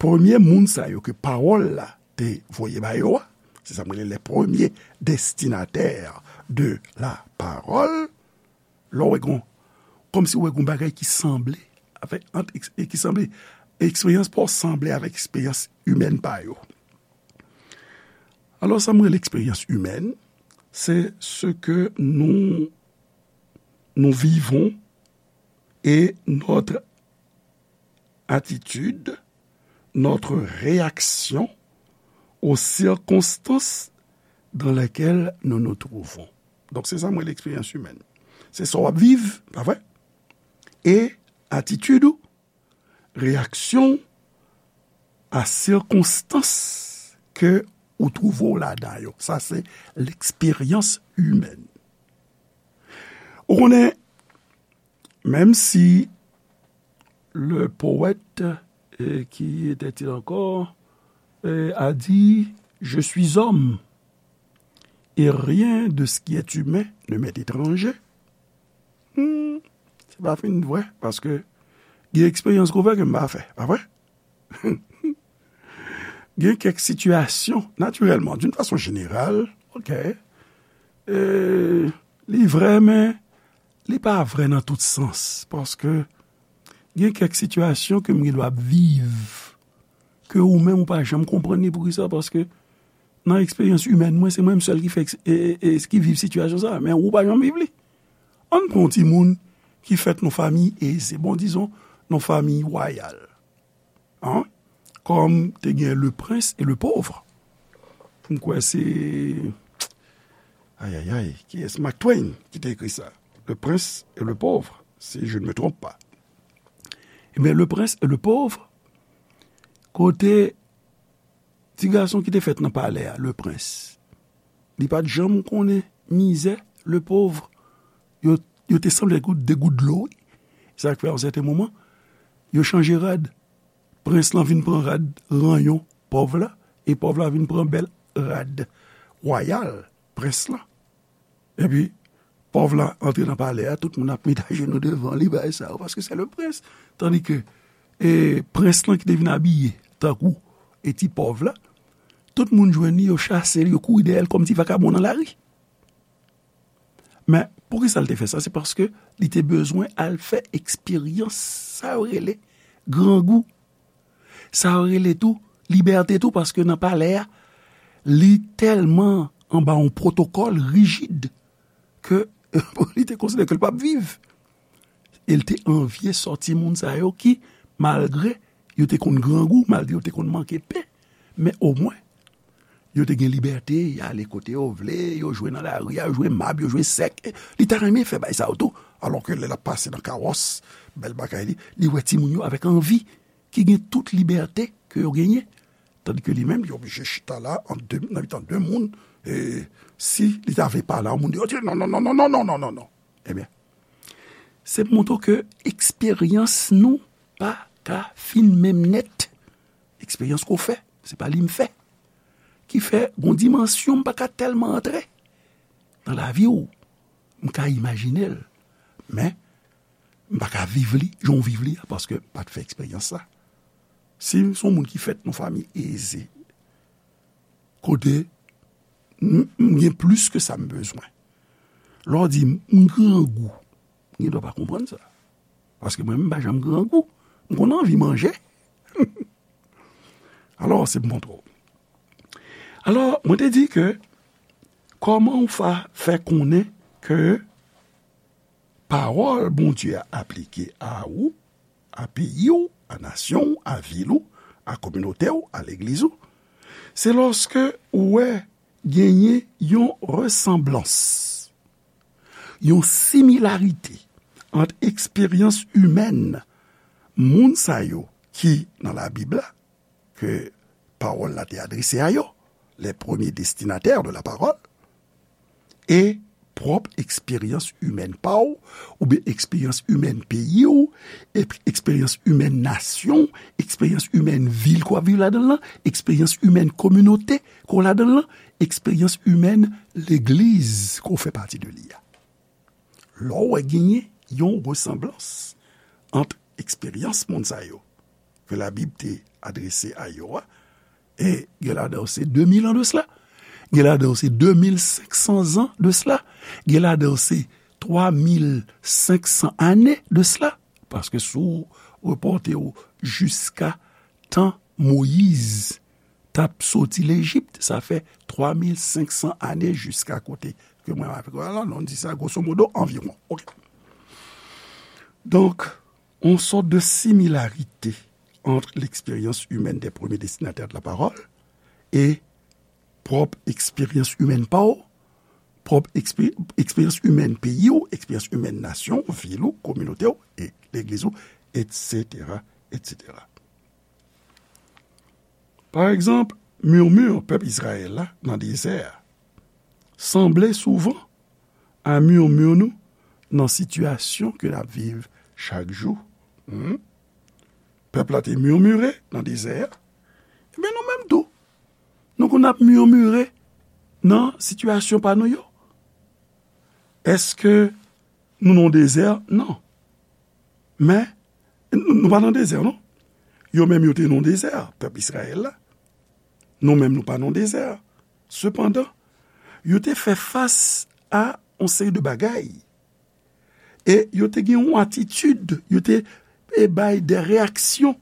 premye moun sa yo ke pawòl la te voye ba yo a, se sa m rele les premiers destinataires de la parole, lè w wè gon, kòmsi w wè gon bagay ki sanble avèk, ant, e ki sanble, eksperyans pa w sanble avèk eksperyans imèn pa yo. Alò, sa m rele eksperyans imèn, se ce que nous, nous vivons et notre attitude, notre réaction aux circonstances dans lesquelles nous nous trouvons. Donk, se sa m rele eksperyans imèn. Se sa w ap viv, pa vre? E atitid ou, reyaksyon a sikonstans ke ou twouve w ladan yo. Sa se l'expérience humaine. Ou konnen, menm si le poète, euh, qui était-il encore, euh, a dit, je suis homme, et rien de ce qui est humain ne m'est étranger. Hmm, se pa fin vre, paske gen eksperyans ke w fè ke m pa fè, pa vre? Gen kèk sitiyasyon, natirèlman, d'une façon générale, ok, e, li vre, men li pa vre nan tout sans, paske gen kèk sitiyasyon ke m gen dwa ap viv, ke ou menm ou pa janm konprann li. Poukisa? Paske nan eksperyans imèn mwen, se mwen menm sèl ki fè eks-, e, e, e, ki viv sitiyasyon sa, men ou pa janm viv li. Ann pran yon timoun ki fèt nan fanmi eze, bon, dizon, nan fanmi wayal. An? Kòm te gen le prince et le pauvre. M kwè se, ay, ay, ay, kiyès? Mark Twain ki te ekri sa. Le prince et le pauvre, si je ne me trompe pas. Ebyen, le prince et le pauvre, kote ti gason ki te fèt nan palè a, le prince, li pa t janm konnen mizè, le pauvre, yo, yo te sanble gout, de gout dlo, wi. Sa k fè, yon sèten moman, yo chanje rad. Prens lan vin pran rad ranyon pòv la, e pòv la vin pran bèl rad wayal prens lan. Epi, pòv la antre nan palè a, tout moun ap met ajenou devan li, bagay sa yo, paske se le prince. Tandike, e, prens lan ki te vin abiye tankou, e, ti pòv la, tout moun jwenn li, yo chase l, yo kouri dèyè l kòm ti vakabon nan lari. Men, poukisa l te fè sa? Se paske li te bezwen al fè eksperyans, sa yo rele grangou. Sa yo rele tou libète tou, paske nan palè a, li tèlman anba yon pwotokòl rijid ke li te konsidere ke l p ap viv. E l te anvye sòti moun sa yo ki, malgre yo te konn grangou, malgre yo te konn manke pen, men omwen, yo te gen libète, y ale kote yo vle, yo jwe nan lari a, yo jwe mab, yo jwe sèk. Li ta renmen fè bagay sa yo tou, alò ke lè l ap pase nan kawòs, bèl bagay li, li wè timoun yo avèk anvi, ki gen tout libète ke yo genyen. Tandike li menm, li oblije chita la, ant de, nan mitan de moun, e si li ta vle pale a yon moun deyò, di, non, non, non. Ebyen, se pou montre w ke eksperyans nou pa ka fin menm nèt. Eksperyans ke w fè, se pa li m fè. Ki fè, gon dimansyon m pa ka tèlman antre nan lavi w, m ka imajine l. Men, m pa ka viv li, jan w viv li a, paske m pa t fè eksperyans sa. Si m se yon moun ki fèt nan fanmi eze, kote m, m gen plis ke sa m bezwen. Lè w di m, m grangou, m gen dwa pa konprann sa. Paske mwen menm, m pa janm grangou. M konn anvi manje. Alò, se pou montre w. Alò, mwen te di ke kòman w fa, fè konnen ke pawòl Bondye a aplike a ou, a peyi w, a nasyon w, a vil ou, a kominote w, a legliz ou, se lòske ou wè genyen yon resanblans, yon similarite ant eksperyans imèn moun sa yo ki nan Labib la, ke pawòl la te adrese a yo, les premiers destinataires de la parole, e pwòp eksperyans imèn pa w, oubyen eksperyans imèn peyi w, eksperyans imèn nasyon w, eksperyans imèn vil ke w ap viv ladan l lan, eksperyans imèn kominote ke w ladan l lan, eksperyans imèn legliz ke w fè pati de li a. Lè w wè genyen yon resanblans ant eksperyans moun sa yo ke Labib te adrese a yo a, e gen ladan yo se de mil an de sela, gen ladan yo se de mil senk san zan de sela, gen ladan yo se twa mil senk san ane de sela, paske si w repòte w jiska tan Moyiz t ap soti Lejip, sa fè twa mil senk san ane jiska kote ke mwen avèk ou la, nou di sa grosso modo, anviwon. Ok. Donk, yon sòt de similarite ant l'expérience humaine des premiers destinataires de la parole e pwòp eksperyans imèn pa w, pwòp ekspe-, eksperyans imèn peyi w, eksperyans imèn nasyon w, vil ou, kominote w, e legliz ou, etsetera, etsetera. Pa egzanp, murmure pèp Izrayèl la nan dezè a sanble souvan a murmure nou nan sitiyasyon ke n ap viv chak jou. Hmm? Pèp la te murmure nan dezè a. Ebyen, nou menm tou, nou konn ap murmure nan sitiyasyon pa nou yo. Èske nou nan dezè? Non. Men, n-, nou pa nan dezè, non. Yo menm, yo te nan dezè, pèp Izrayèl la. Nou menm, nou pa nan dezè. Sepandan, yo te fè fas a yon seri de bagay. E yo te gen yon atitid, yo te, e, bay de reyaksyon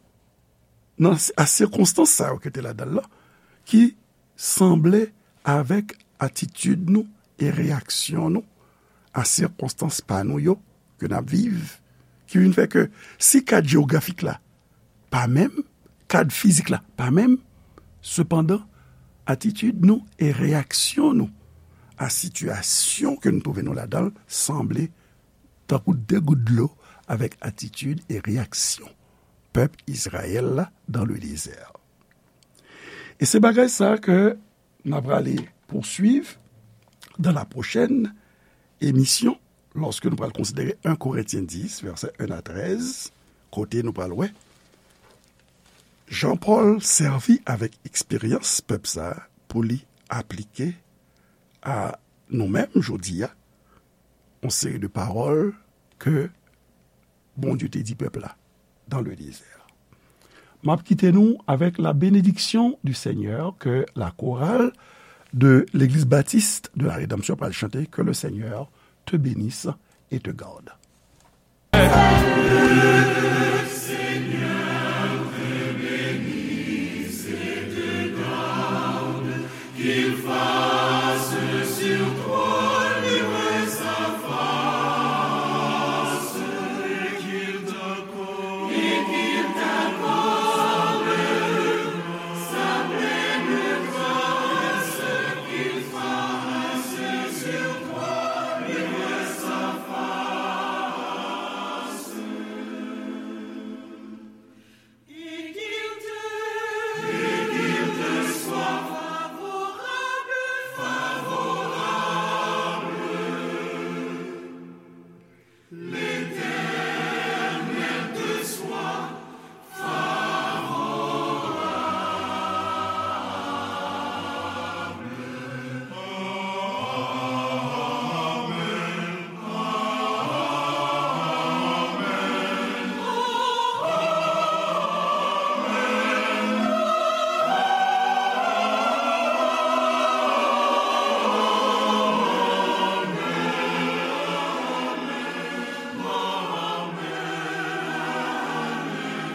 nan, a sikonstans sa yo ki te ladan l lan, ki sanble avèk atitid nou e reyaksyon nou a sikonstans pa nou yo ke n ap viv, ki vin fè ke si kad jewografik la pa menm, kad fizik la pa menm, sepandan, atitid nou e reyaksyon nou a sitiyasyon ke nou twouve nou ladan l sanble tankou de gout dlo avèk atitid e reyaksyon pèp Izrayèl la dans le désert. E se bagay sa ke n ap prale poursuivre dans la prochaine émission, lòske nou pral konsidere un Korentyen dis, vèsè en a trèz, kote nou pral wè Jan Pòl sèvi avèk eksperyans pèp sa a pou li aplike a nou menm jodi a yon seri de pawòl ke Bondye te di pèp la dans le désert. M ap kite nou avec la bénédiction du Seigneur que la chorale de l'Église Baptiste de la Rédemption pral chante, que le Seigneur te bénisse et te garde.